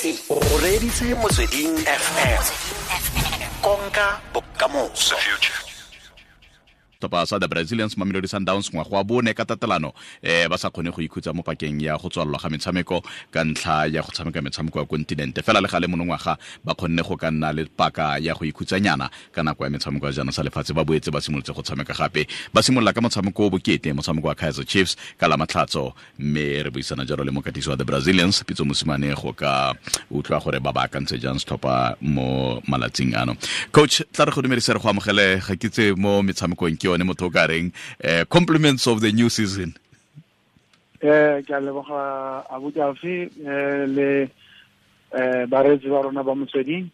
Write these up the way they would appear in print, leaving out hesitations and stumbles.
O reditse Motsweding FM. Konka bokamoso. Setlhopha sa the Brazilians, Mamelodi Sundowns, ngwaga wa bone ka tatelano ba sa kgone go ikhutsa mo pakeng ya go tswalelwa ga metshameko ka ntlha ya go tshameka metshameko ya kontinente. Fela le gale monongwaga ba kgonne go ka nna le paka ya go ikhutsanyana ka nako ya metshameko ya jaana sa lefatshe. Ba boetse ba simolotse go tshameka gape, ba simolola ka motshameko o bokete, motshameko wa Kaizer Chiefs ka la Matlhatso. Mme re buisana jalo le mokatisi wa the Brazilians, Pitso Mosimane, go ka utlwa gore ba baakantse jang setlhopha mo malatsing ano. Coach, tla re go dumedise, re go amogele ga kitse mo metshamekong ke yone motho o ka reng compliments of the new season. Ke a leboga, abuti Alfi, le bareetsi ba rona ba Motsweding.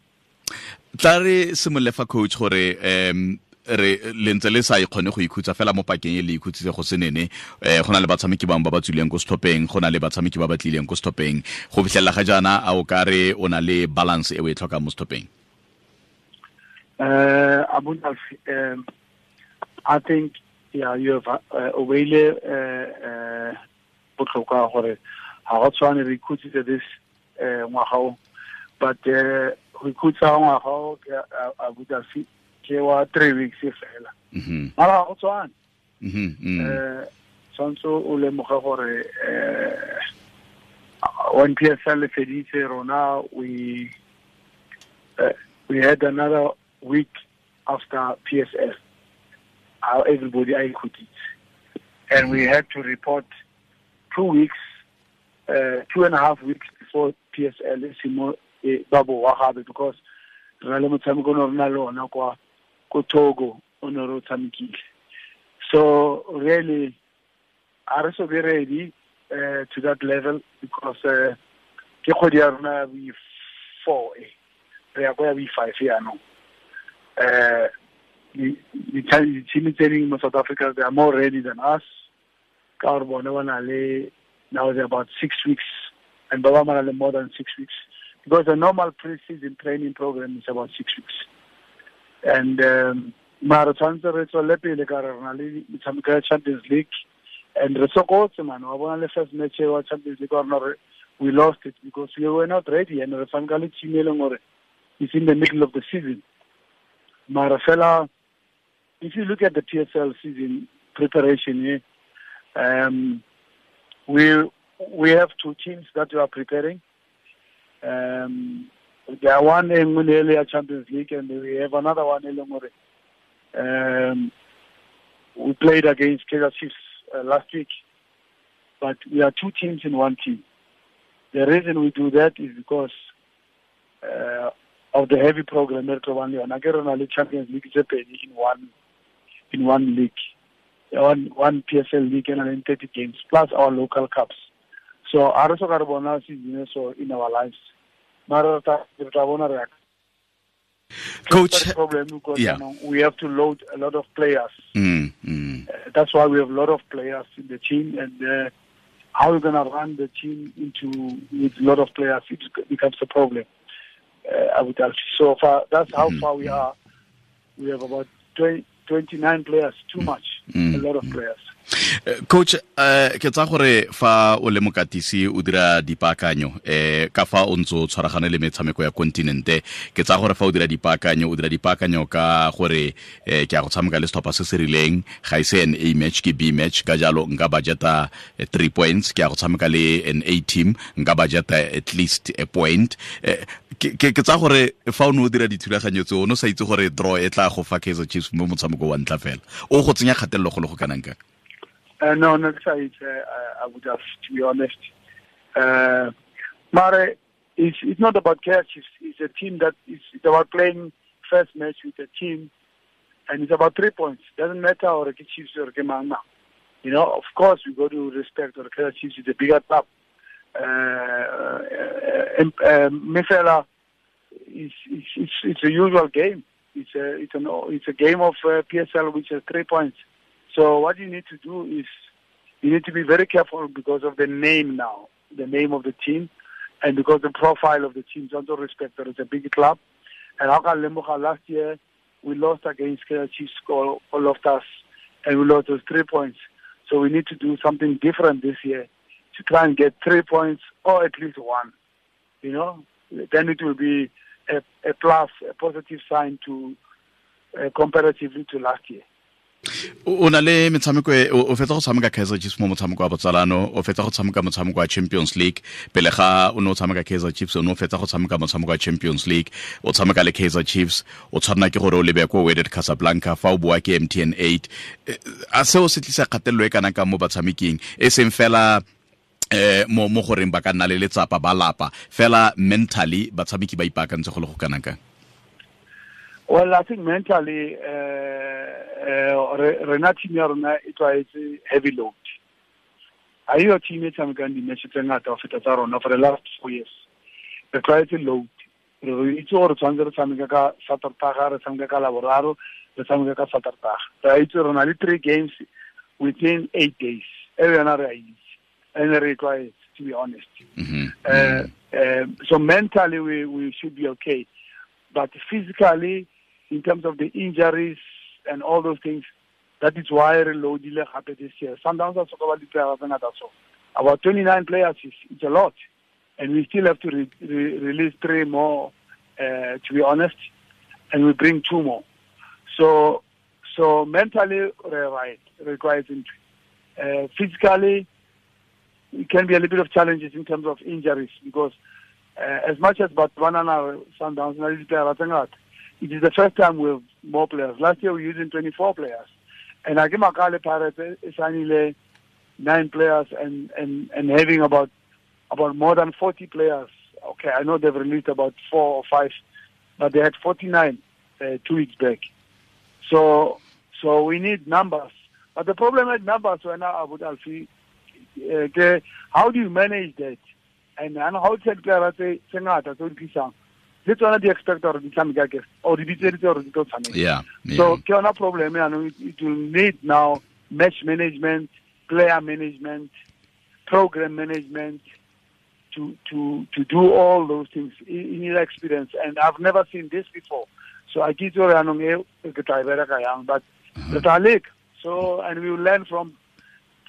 Tla re simolole fa, coach, gore re le ntse le sa ikgone go ikhutsa fela mo pakeng e le ikhutsitse go senene. Go na le batshameki bangwe ba ba tswileng ko setlhopheng, go na le batshameki ba ba tlileng ko setlhopheng. Go fitlhelela ga jaana, a o ka re o na le balance e o e tlhokang mo setlhopheng? Abuti Alfi, I think, yeah, you have o beile botlhokwa gore ga go tshwane re ikhutsitse this ngwaga o, but go ikhutsa ngwaga o ke, abuti Alfi, ke wa 3 weeks fela. Mara ga go tshwane. Tshwanetse o lemoge gore when PSL le feditse, rona we had another week after PSL, how everybody a ikhutsitse, and we had to report 2 weeks, 2.5 weeks before PSL e simo e ba boa gape, because re na le motshameko o ne re na le ona kwa ko Togo o ne re o tshamekile. So really a re so be ready to that level, because ke kgwedi ya rona ya bo 4 e re ya ko ya bo 5 yaanong. Di-team tse dingwe mo South Africa, they are more ready than us, ka gore bone ba na le, now they're about 6 weeks, and ba ba na le more than 6 weeks, because the normal pre-season training program is about 6 weeks. And mara tshwanetse re tswelele pele ka re re na le metshameko ya Champions League, and re sokotse man. Wa bona le first match wa Champions League wa rona, we lost it because we were not ready, and re tshameka le team e leng gore it's in the middle of the season. Mara fela, if you look at the PSL season preparation, we have two teams that we are preparing. There are one in le Champions League, and we have another one in gore we played against Kaizer Chiefs last week. But we are two teams in one team. The reason we do that is because of the heavy program re tlo bang le yona. Ke re na le Champions League tse pedi in one league, one PSL league and then 30 games plus our local cups. So a re so ka re bona season so in our lives, mara re tla bona re Coach, problem, because we have to load a lot of players. That's why we have a lot of players in the team, and how we're going to run the team into with a lot of players, it becomes a problem. I would actually. So far, that's how far we are. We have about 20, 29 players, too much, a lot of players. Coach, ke tsa gore fa o le mokatisi o dira dipaakanyo ka fa o ntse o tshwaragane le metshameko ya kontinente, ke tsa gore fa o dira dipaakanyo, o dira dipaakanyo ka gore ke a go tshameka le setlhopha se se rileng, ga e se an A match, ke B match, ka jalo nka budgeta 3 points. Ke a go tshameka le an A team, nka budgeta at least a point. Ke tsa gore fa o ne o dira dithulaganyo tse, o ne o sa itse gore draw e tla go fa Kaizer Chiefs mo motshameko wa ntlha fela, o go tsenya kgatelelo go le go kanang kang? No, not say it. I would have, to be honest. Mare, it's not about Kaizer Chiefs. It's a team that is, it's about playing first match with a team, and it's about 3 points. Doesn't matter or ke Chiefs or ke mang mang. Of course, we got to respect or Kaizer Chiefs is a bigger club. Mifela, it's a usual game. It's a game of PSL, which has 3 points. So what you need to do is you need to be very careful because of the name now, the name of the team, and because the profile of the team. Also respect that it's a big club. And ha ka lemoga, last year we lost against Kaizer Chiefs, all of us, and we lost those 3 points. So we need to do something different this year to try and get 3 points or at least one. Then it will be a plus, a positive sign to comparatively to last year. O na le metshameko o fetsa go tshameka Kaizer Chiefs mo motshameko wa botsalano, o fetsa go tshameka motshameko wa Champions League. Pele ga o ne o tshameka Kaizer Chiefs, o ne o fetsa go tshameka motshameko wa Champions League, o tshameka le Kaizer Chiefs, o tshwanela ke gore o lebe ko Wydad Casablanca fa o boa ke MTN 8. A seo se tlisa kgatelelo e kana ka mo batshameking, e seng fela mo goreng ba ka nna le letsapa ba lapa, fela mentally batshameki ba ipaakantse go le go kana kang? Well, I think mentally, rena team ya rona e tlwaetse heavy load. A yo team e tshamekang di-match tse ngata ho feta tsa rona for the last 4 years. Re tlwaetse load. Re itse gore tshwanetse re tshameka ka Satertaga, re tshameka ka Laboraro, re tshameka ka Satertaga. Re itse re na le 3 games within 8 days. E yona re a itse. And re tlwaetse, to be honest. Mm-hmm. So mentally we should be okay. But physically, in terms of the injuries and all those things, that is why re loadile gape this year. Sundowns are so about 29 players is a lot. And we still have to release 3 more, to be honest, and we bring 2 more. So mentally, we're right, requires entry. Physically, it can be a little bit of challenges in terms of injuries because as much as Botswana Sundowns, it is the first time we have more players. Last year we were using 24 players. And Agimakale Pirates signed 9 players and having about more than 40 players. Okay, I know they've released about 4 or 5, but they had 49 2 weeks back. So we need numbers. But the problem with numbers right now, Abu Alfi, how do you manage that? And how to player say sengata so dikisang le tsona di expect or di tshameka ke or di bitseditse or di tlo tshameka. Yeah. So ke yona problem ya no, it will need now match management, player management, program management to do all those things in your experience. And I've never seen this before. So I get your anong e ke tla bereka yang, but re tla leka. So and we will learn from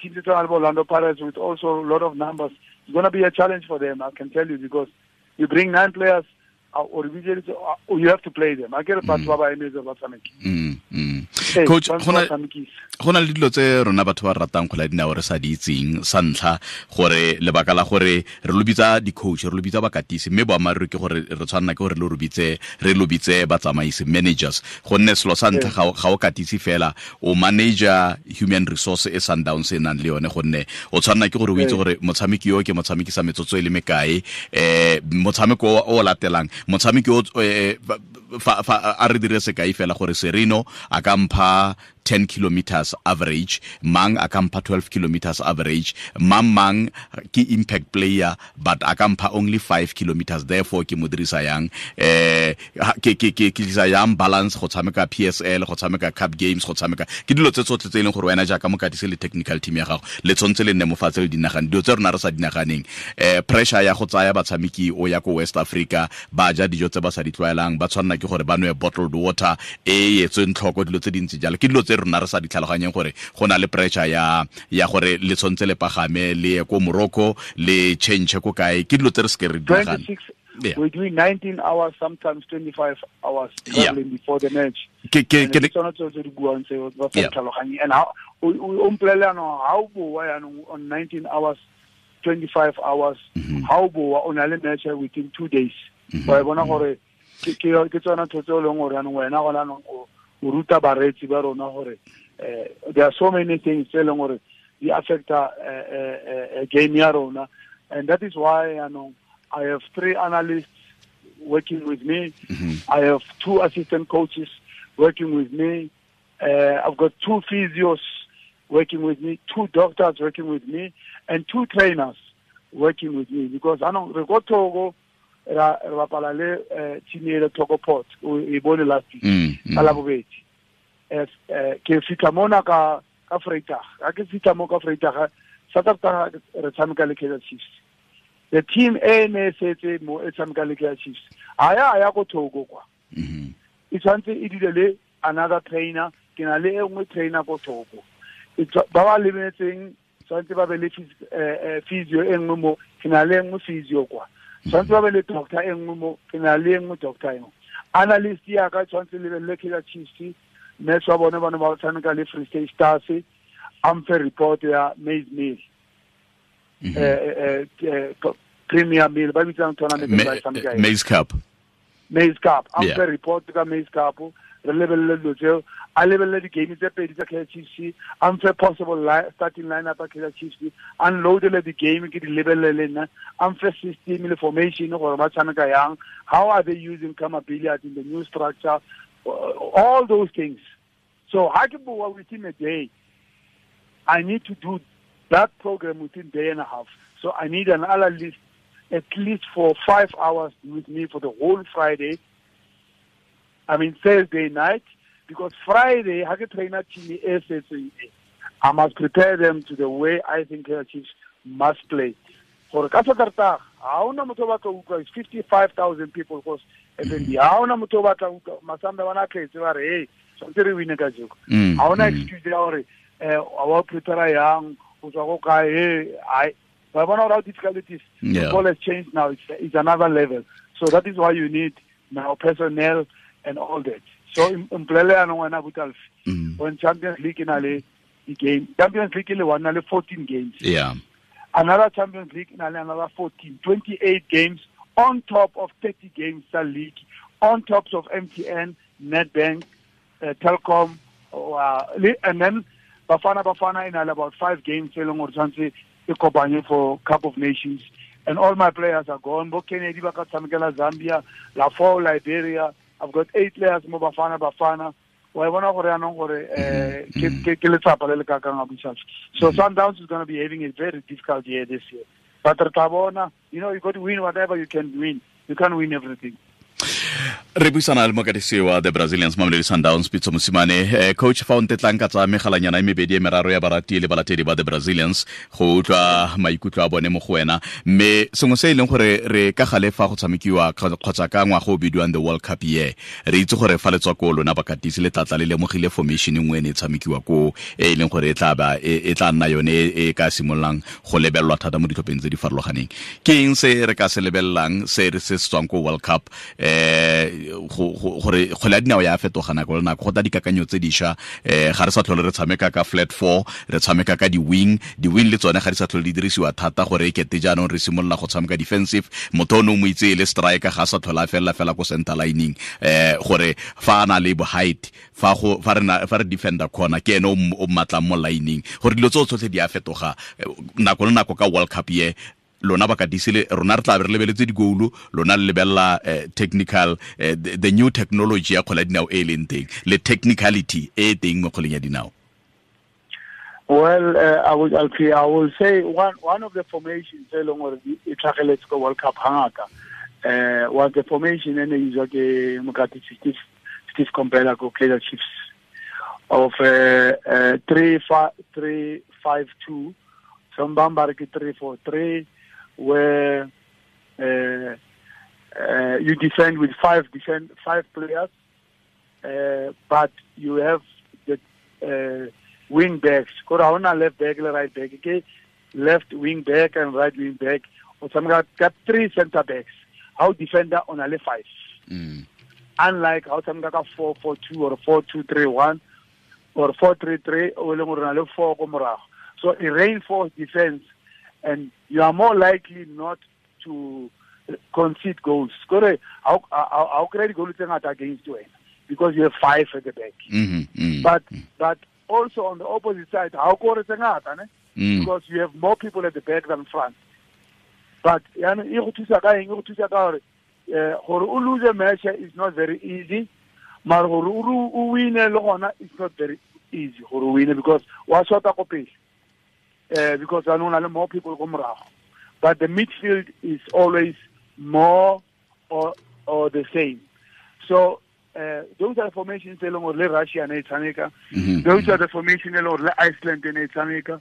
teams like Orlando Pirates with also a lot of numbers. It's going to be a challenge for them, I can tell you, because you bring 9 players, or you have to play them. I get a batho ba ba emetse ba tshameke. Coach, go na le dilo tse rona batho ba ratang kgwele ya dinao re sa di itseng. Sa ntlha, gore lebaka la gore re lo bitsa di-coach, re lo bitsa bakatisi, mme boammaaruri ke gore re tshwanela ke gore re lo bitse batsamaisi, managers, gonne selo sa ntlha ga o katise fela, o manager human resource e Sundowns e nang le yone, gonne o tshwanela ke gore o itse gore motshameki yo ke motshameki sa metsotso e le mekae, motshameko o latelang, motshameki o fa a re dire sekai fela gore Sereno a ka mpha 10 kilometers average, mang a ka mpha 12 kilometers average, mang ke impact player but a ka mpha only 5 kilometers, therefore ke mo dirisa yang, ke tlisa yang balance go tshameka PSL, go tshameka Cup Games, go tshameka ke dilo tse tsotlhe tse e leng gore wena jaaka mokatisi le technical team ya gago le tshwanetse le nne mo fatshe le dinagane dilo tse rona re sa dinaganeng. Pressure ya go tsaya batshameki o ya ko West Africa, ba ja dijo tse ba sa di tlwaelang, ba tshwanela ke gore ba nwe bottled water e etsweng tlhoko, dilo tse dintsi jalo ke dilo tse rona re sa di tlhaloganyeng gore go na le pressure ya gore le tshwanetse le pagame le ye ko Morocco le change ko kae, ke dilo tse re se re di nagana. Yeah. We're doing 19 hours, sometimes 25 hours traveling before the match. And how on 19 hours, 25 hours, how on a match within 2 days. Ke tsona ntho tse e leng gore jaanong wena gona anong o ruta bareetsi ba rona gore there are so many things tse e leng gore di affecta game ya rona, and that is why anong I have 3 analysts working with me. I have 2 assistant coaches working with me. I've got 2 physios working with me, 2 doctors working with me, and 2 trainers working with me, because anong re go Togo ra bapala le team e le Togo Port o e bone last week ka Labobedi. Ke fitla mona ka Vrydag, ga ke fitla mo ka Vrydag, Saterdag re tshameka le Kaizer Chiefs. The team e ne setse mo e tshameka le Kaizer Chiefs a ya ko Togo kwa. E tshwanetse e dile le another trainer, ke na le e nngwe trainer ko Togo. Ba ba lebeletseng tshwanetse ba be le physio e nngwe mo, ke na le e nngwe physio kwa. Tshwanetse ba be le doctor e nngwe mo, ke na le e nngwe doctor e nngwe. Analyst ya ka tshwanetse lebelele Kaizer Chiefs, match wa bone ba ne ba tshameka le Free State Stars, a mfe report ya maize meal. Premier Meal, ba bitsang tournament ba tshameka eng? Maize Cup. Maize Cup. A mfe report ka Maize Cup, re lebelele dilo tseo, a lebelele di-game tse pedi tsa Kaizer Chiefs, a mfe possible starting lineup ya Kaizer Chiefs, a nloadele di-game ke di lebelele le nna, a mfe system le formation gore ba tshameka yang, how are they using Khama Billiat in the new structure, all those things. So ha ke bua within a day, I need to do that program within day and a half. So I need an analyst at least for 5 hours with me for the whole Friday. I mean Thursday night, because Friday, ha ke trainer team e setseng e, I must prepare them to the way I think Kaizer Chiefs must play. Gore ka Saterdag, ha hona motho o batla ho utlwa, it's 55,000 people because FNB, ha hona motho o batla ho utlwa, Masamba bana tletse ba re, hey, tshwanetse re win ka jeko. Ha hona excuse ya hore, wa prepare yang, o tswa ko kae, hey, ai, ba bona hore how difficult it is. Football has changed now, it's another level. So that is why you need now personnel and all that. So mpolele yanong wena Butalfi, when Champions League na le game, Champions League le one na le 14 games. Another Champions League na le another 14, 28 games on top of 30 games tsa league, on top of MTN, Nedbank, Telkom, and then Bafana Bafana in about 5 games e leng gore tshwanetse e kopanye for Cup of Nations. And all my players are gone. Bo Kennedy ba ka tshamekela Zambia, Lafo, Liberia. I've got 8 players mo Bafana Bafana. Wa bona gore yanong gore, ke letsapa le le kakang a Bushas. So Sundowns is going to be having a very difficult year this year. But re tla bona, you got to win whatever you can win. You can't win everything. Re buisana le mokatisi wa the Brazilians Mamelodi Sundowns Pitso Mosimane. Coach, fa o ntetlang ka tsa megalanyana e mebedi e meraro ya barati le balatedi ba the Brazilians go utlwa maikutlo a bone mo go wena, mme sengwe se e leng gore re ka gale fa go tshamekiwa kgotsa ka ngwaga o bidiwang the World Cup year, re itse gore fa le tswa ko lona bakatisi le tlatla le lemogile formation nngwe e ne e tshamekiwa ko e leng gore e tla nna yone e ka simololang go lebelelwa thata mo ditlhopheng tse di farologaneng. Ke eng se re ka se lebelelang se re se tswang ko World Cup, gore kgwele ya dinao ya fetoga nako le nako, go tla dikakanyo tse dišwa, ga re sa tlhole re tshameka ka flat four, re tshameka ka di-wing, di-wing le tsone ga di sa tlhole di dirisiwa thata gore e kete jaanong re simolola go tshameka defensive, motho o ne o mo itse e le striker ga a sa tlhole a felela fela ko center lining, gore fa a na le height, fa re defender corner ke ene o mmatlang mo lining, gore dilo tseo tsotlhe di a fetoga nako le nako ka World Cup ye. Lona ba katisi le rona re tla be re lebeletse digoulu, lona le lebella technical, the new technology ya kgwele ya dinao e leng teng le technicality e teng mo kgweleng ya dinao. Well, I will say one of the formations e leng gore e tlhageletse ko World Cup hangata, was the formation e ne e itswa ke mokatisi Steve Komphela ko Kaizer Chiefs of 3-5-2, some ba re ke 3-4-3, where you defend with five players, but you have the wing backs. Kore ha hona left back le right back, ke left wing back and right wing back. O tshameka ka 3 center backs. How defender on a le 5. Unlike how tshameka ka 4-4-2 or 4-2-3-1 or 4-3-3, o leng gore na le 4 ko morago. So it reinforces defense, and you are more likely not to concede goals. Kore ha o kry di-goal tse ngata against wena because you have 5 at the back. But also on the opposite side, ha o kore tse ngata, ne? Because you have more people at the back than front. But yaanong e go thusa ka eng? E go thusa ka gore o lose a match is not very easy, mara gore o wine le gona is not very easy gore o wine because wa shota ko pele. Because I know more people go morago. But the midfield is always more or the same. So those are the formations e leng gore le Russia ne e tshameka. Those are the formations e leng gore le Iceland ne e tshameka.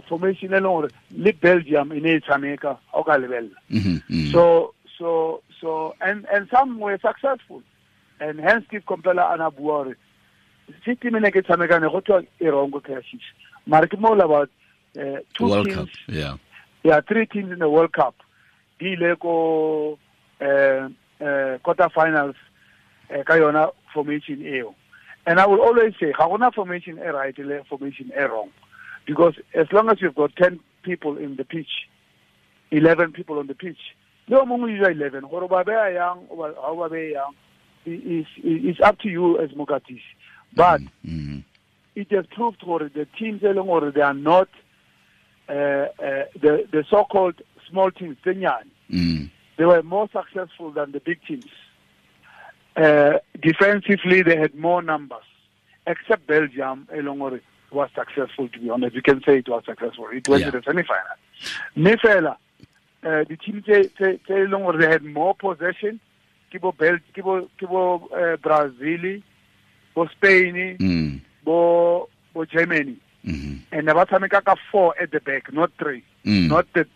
Formation e leng gore le Belgium e ne e tshameka, ha o ka lebella. And some were successful. And hence Steve Komphela a na bua gore system e ne ke tshameka ne go thwe e wrong ko Kaizer Chiefs. Mara ke mo about 2 World teams. Cup, yeah. Yeah, 3 teams in the World Cup. di ile ko quarter finals ka yona formation eo. And I will always say ga gona formation e right le formation e wrong, because as long as you've got 10 people in the pitch, 11 people on the pitch, le o mongwe o 11 gore ba beya yang o ba beya yang is up to you as mokatisi. But it has proved gore the teams e leng gore they are not the so-called small teams, they were more successful than the big teams. Defensively, they had more numbers, except Belgium, Elongore was successful, to be honest. You can say it was successful. It went to the semi-final. Mefela, the team they had more possession. Kibo Kibo Brazil, bo Spain, bo Germany. And they were 4 at the back, not 3. Not the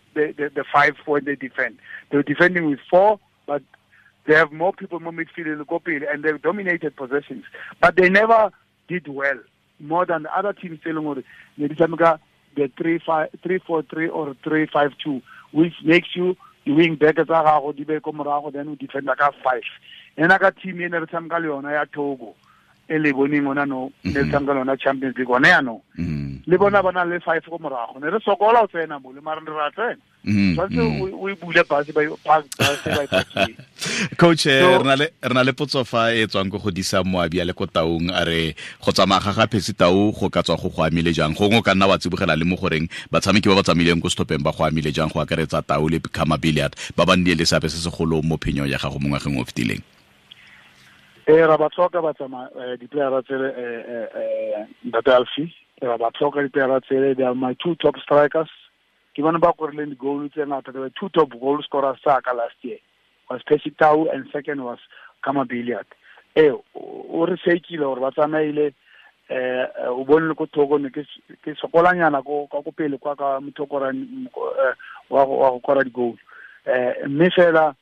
5 when they defend. They were defending with 4, but they have more people, more midfield, and they dominated possessions. But they never did well, more than the other teams. The 3-4-3 or 3-5-2, which makes you the wing back then you defend like a 5. And I got team in the Togo. Le boneng ona no le tshameka lona Champions League one ya no le bona ba na le 5 go morago ne re sokola o tsena mo le mara re ra tsena tshwantse o e bule base ba ba Coach, re na le potso fa e tswang go godisa moabi a le ko Taung, a re go tsamaya ga ga Percy Tau go ka tswa go go amile jang, gongwe o ka nna wa tsibogela le mo goreng batshameki ba ba tsamaileng ko setlhopheng ba go amile jang, go akaretsa Tau le Khama Billiat ba ba nnile le seabe se segolo mo phenyong ya gago mo ngwageng o fetileng. Ra ba tlhoka ba tsamaya di-playera tsele Ntate Alfie, ra ba tlhoka di-playera tsele. They are my 2 top strikers. Ke bone ba korileng di-goal tse ngata. They were 2 top goal scorers tsaka last year. Was Percy Tau and second was Khama Billiat. O re sekile gore ba tsamaile, o bone le ko Togo ne ke sokolanyana ko ka ko pele kwa ka motho wa go kora di-goal. Mme fela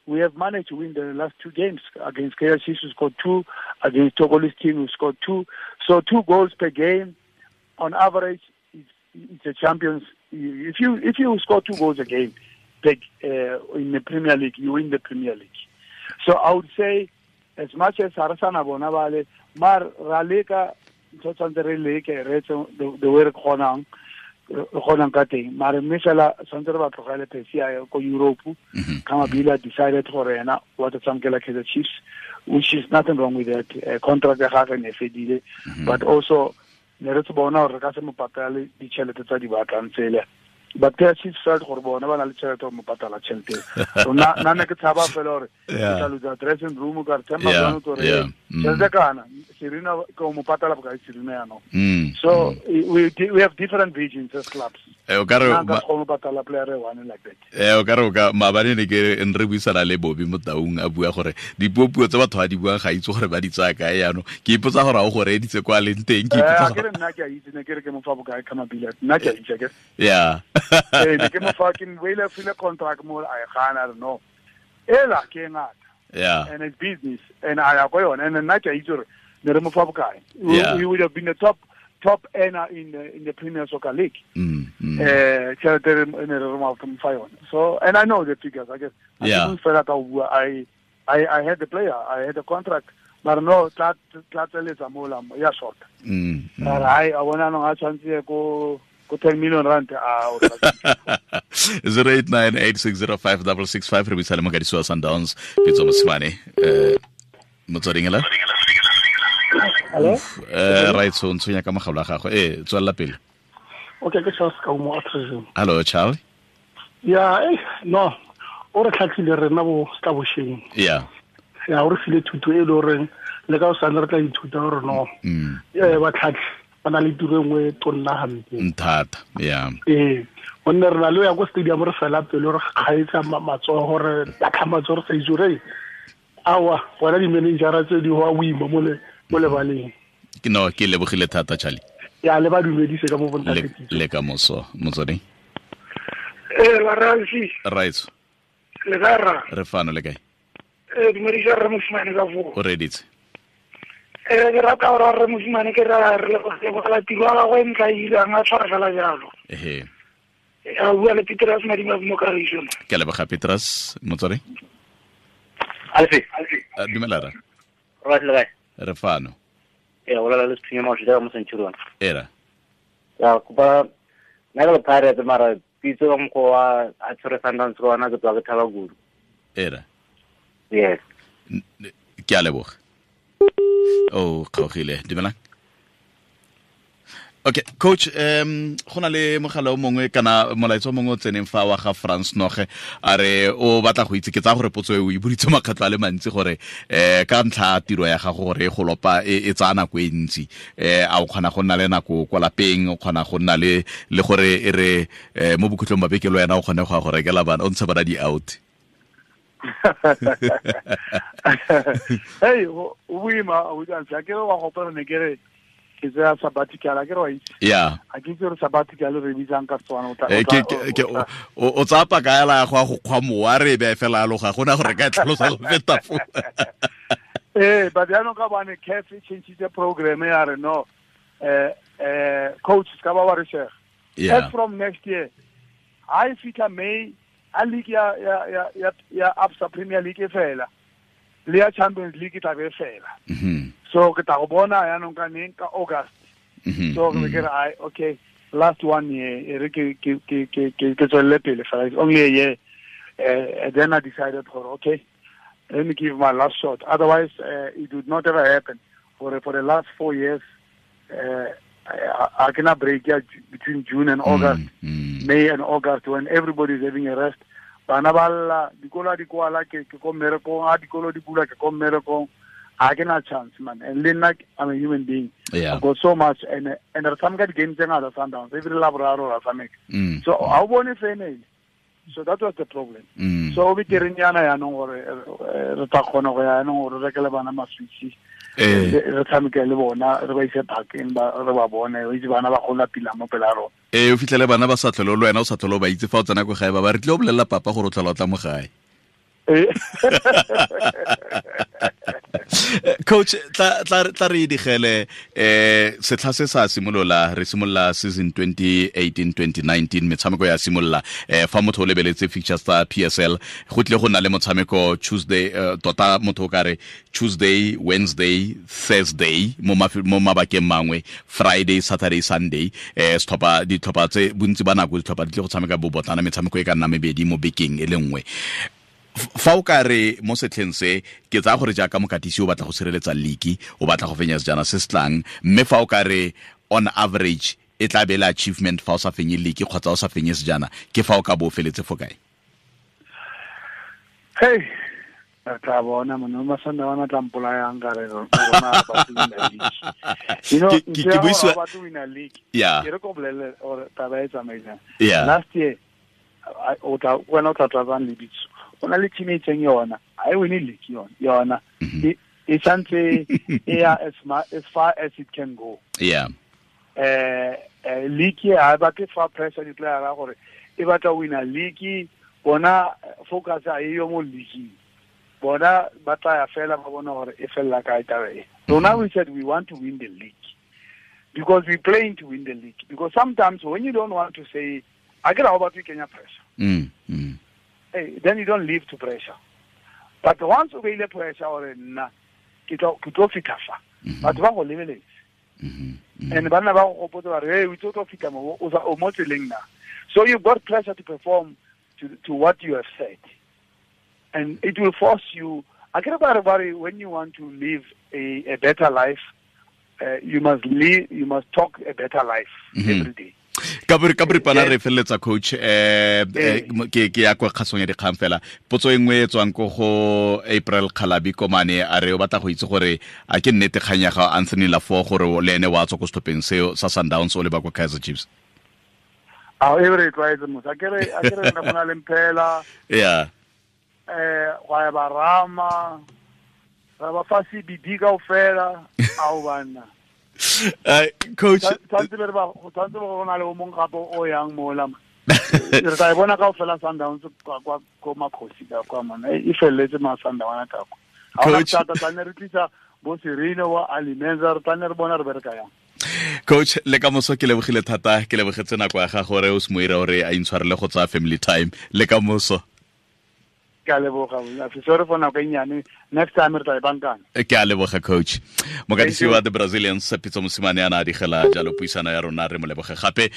we have managed to win the last 2 games. Against KRC, we scored 2. Against Togolese team, we scored 2. So 2 goals per game, on average, it's a champions. If you score 2 goals a game in the Premier League, you win the Premier League. So I would say, as much as Arasana Bonavale, Mar Raleka, the way Khonang ka teng, mare mme fela tshwanetse re ba tlogele Percy a ye ko Europe. Khama Billiat decided gore ena wa tla tshamekela Kaizer Chiefs, which is nothing wrong with that. Contract ya gagwe ne fedile, but also ne re tsebona gore re ka se mo patale ditšhelete tsa di batlang tsele. But Kaizer Chiefs felt gore bona ba na le tšhelete go mo patala tšhelete. So nna ne ke tshaba fela gore ke tla lose dressing room ka re themba jang gore tšhelete kana Serena ke mo patala bokae Serena ya no. So we have different visions as clubs. O ka re ba go patala player one like that. O ka re ka maabane ne ke re buisana le Bobby mo Taung a bua gore dipuopuo tse batho ba di buang ga itse gore ba di tsaya kae jaanong. Ke ipotsa gore a o go reeditse kwa leng teng, ke ipotsa gore ke re nna ke a itse ne ke re ke mo fa bokae Khama Billiat, nna ke a itse ke. Yeah. Ne ke mo fa ke wele file contract mo a gana re no. Ela ke ngata. Yeah. And it's business and I ya go yone and nna ke a itse gore ne re mo fa bokae. We would have been the top earner in the Premier Soccer League. So, and I know the figures, I guess. Yeah. I had the player, I had the contract, but no, tla tla ya short. I wanna know how chance go 10 million rand. 0898605665 re buisa le mokadisi wa Sundowns Pitso Mosimane. Motsweding ela? Hello? Right, so ntshwenya ka mogalo wa gagwe. Tswelela pele. Okay, ke Charles Kaumo Atrizim. Hello, Charles. Yeah, no. O re tlhatlhile rena bo tla bosheng. Yeah. Ya o re file thuto e le goreng le ka o sane re tla ithuta gore no. Ba tlhatlhe ba na le tiro e nngwe tonna hampe. Nthata, yeah. Gonne re na le ya ko stadium re fela pele re kgaetsa matsogo re latlha matsogo re sa itse gore awa bona di-managera tse di go a boima mo lebaleng. No, ke lebogile thata Charlie. Ya le ba dumedise ka mo bontate. Le ka moso motsweding. La Ralfi. Right. Le ka rra. Re fano le kae? Dumedisa rre Mosimane ka foo. O reditse. Ke rata gore rre Mosimane ke ra re lebogela tiro ya gagwe e ntla e irang a tshwara fela jalo. Ehe. A bua le Petrus Madima mo Kagiso. Ke leboga Petrus motsware. Alfi. Dumela ra. Right le kae? Re fano. E o la le sethunya mo tshela mo Centurion. Era. Ya kopa nna ke le Pirates mara pitso ka mokgwa wa a tshwere Sundowns ka ona ke tswa ke thaba kudu. Era. Yes. Ke a leboga. Oh, kgaogile. Dumelang. Okay, coach, go na le mogala o mongwe kana molaetsa o mongwe o tseneng fa wa ga France Noge a re o batla go itse ke tsaya gore potso e o e boditse makgetlho a le mantsi gore ka ntlha ya tiro ya gago gore e go lopa e tsaya nako e ntsi, a o kgona go nna le nako kwa lapeng, o kgona go nna le gore e re mo bokhutlong ba beke le wena o kgone go ya go rekela bana o ntshe bana di-out. Hey, o boima o itse ke re wa gopela ne ke re ke tsaya sabbatical a ke re wa itse. Yeah. A ke itse gore sabbatical re bitsang ka Setswana o tla ke o tsaya paka yala ya go ya go kgwa mowa re e beye fela aloga gona gore ka e tlhalosa go feta foo. But jaanong ka bane CAF e changile program ya re no coach ka ba wa re shega. Yeah. As from next year, I fitlha May a league ya ya ya ya Absa Premier League e fela. Le ya Champions League e tla be fela. So ke tla go bona yaanong ka neng ka August. So ke re ai okay last 1 year e re ke ke ke ke ke tswelle pele fela, it's only a year. Then I decided for okay let me give my last shot, otherwise it would not ever happen. For the last 4 years I cannot break between June and August, May and August, when everybody is having a rest. Bana ba lla, dikolo di kwala ke ko mmerekong, a dikolo di bula ke ko mmerekong. I cannot chance, man. And then I'm a human being. Yeah. I've got so much, and there's some kind of games in other Sundowns. Every Labraro or something. So I won't say any. So that was the problem. So we didn't ya no gore re tla kgona go ya no gore re rekele bana maswitsi. Re tshameke le bona, re ba ise parkeng ba re ba bone, o itse bana ba gola pila mo pela rona. O fitlhele bana ba sa tlhole le wena o sa tlhole ba itse fa o tsena ko gae ba re tle o bolelela papa gore o tlhola o tla mo gae. Coach, tla re digele setlha se sa simolola, re simolola season 2018-2019 metshameko ya simolola, fa motho o lebeletse fixtures tsa PSL go tle go nna le motshameko Tuesday, tota motho o ka re Tuesday, Wednesday, Thursday mo mabakeng mangwe, Friday, Saturday, Sunday, setlhopha ditlhopha tse bontsi ba nako ditlhopha di tle go tshameka bobotlana metshameko e ka nna mebedi mo bekeng e le nngwe. Fa o ka re mo setlheng se ke tsaya gore jaaka mokatisi o batla go sireletsa league, o batla go fenya sejana se se tlang, mme fa o ka re on average e tla be le achievement fa o sa fenye league kgotsa o sa fenye sejana, ke fa o ka bo o feletse fo kae? Hey, re tla bona monna Masandawana tla mpolayang ka re rona ba to win a league. You know, ke buisiwa ba to win a league. Yeah. Ke re ko bolelle gore taba e tsamaisang. Yeah. Last year o tla wena o tla tlatsang lebitso. O na le team e itseng yona, ha e win league yona. E santse e ya as far as it can go. Yeah. League ha ba ke fa pressure di player gore e batla win a league, bona focus a e yo mo league. Bona ba tla ya fela ba bona gore e fella kae taba e. So now we said we want to win the league because we playing to win the league, because sometimes when you don't want to say I get about Kenya pressure. Hey, then you don't live to pressure. But once you feel pressure or na ke tlo fitla fa. Batho ba go lebeletse. And bana ba go gopotsa ba re, hey, o tlo fitla mo o mo tseleng na. So you've got pressure to perform to what you have said. And it will force you. I get about when you want to live a better life, you must live, you must talk a better life every day. Ka boripana re feleletsa coach, ke ya kwa kgasong ya dikgang fela. Potso e nngwe e tswang ko go April Kgalabi Komane a re o batla go itse gore a ke nnete kgang ya ga Anthony Laffor gore le ene wa tswa ko setlhopheng seo sa Sundowns o leba kwa Kaizer Chiefs. A e re tlwaetse motho, a ke re nna go na le mphela. Yeah. Gwa ya ba rama, ra ba fa CBD kaofela, ao banna. Coach, tshwanetse be re ba tshwanetse go na le o mong gape o yang mola. Re tla e bona kaofela Sundowns kwa ko Makgosi ka kwa mona. E felletse ma Sundown ka kwa. Ha ona thata tla ne re tlisa bo Sereno wa Alimenza, re tla ne re bona re bereka yang. Coach, le ka moso ke lebogile thata, ke lebogetse nako ya gago gore o se moira gore a intshwarele go tsaya family time le ka moso. Ke a leboga, sorry for nako e nnyane, next time re tla e bankana. Ke a leboga, coach. Mokatisi wa the Brazilians, Pitso Mosimane, a na a digela jalo puisano ya rona, re mo leboge gape.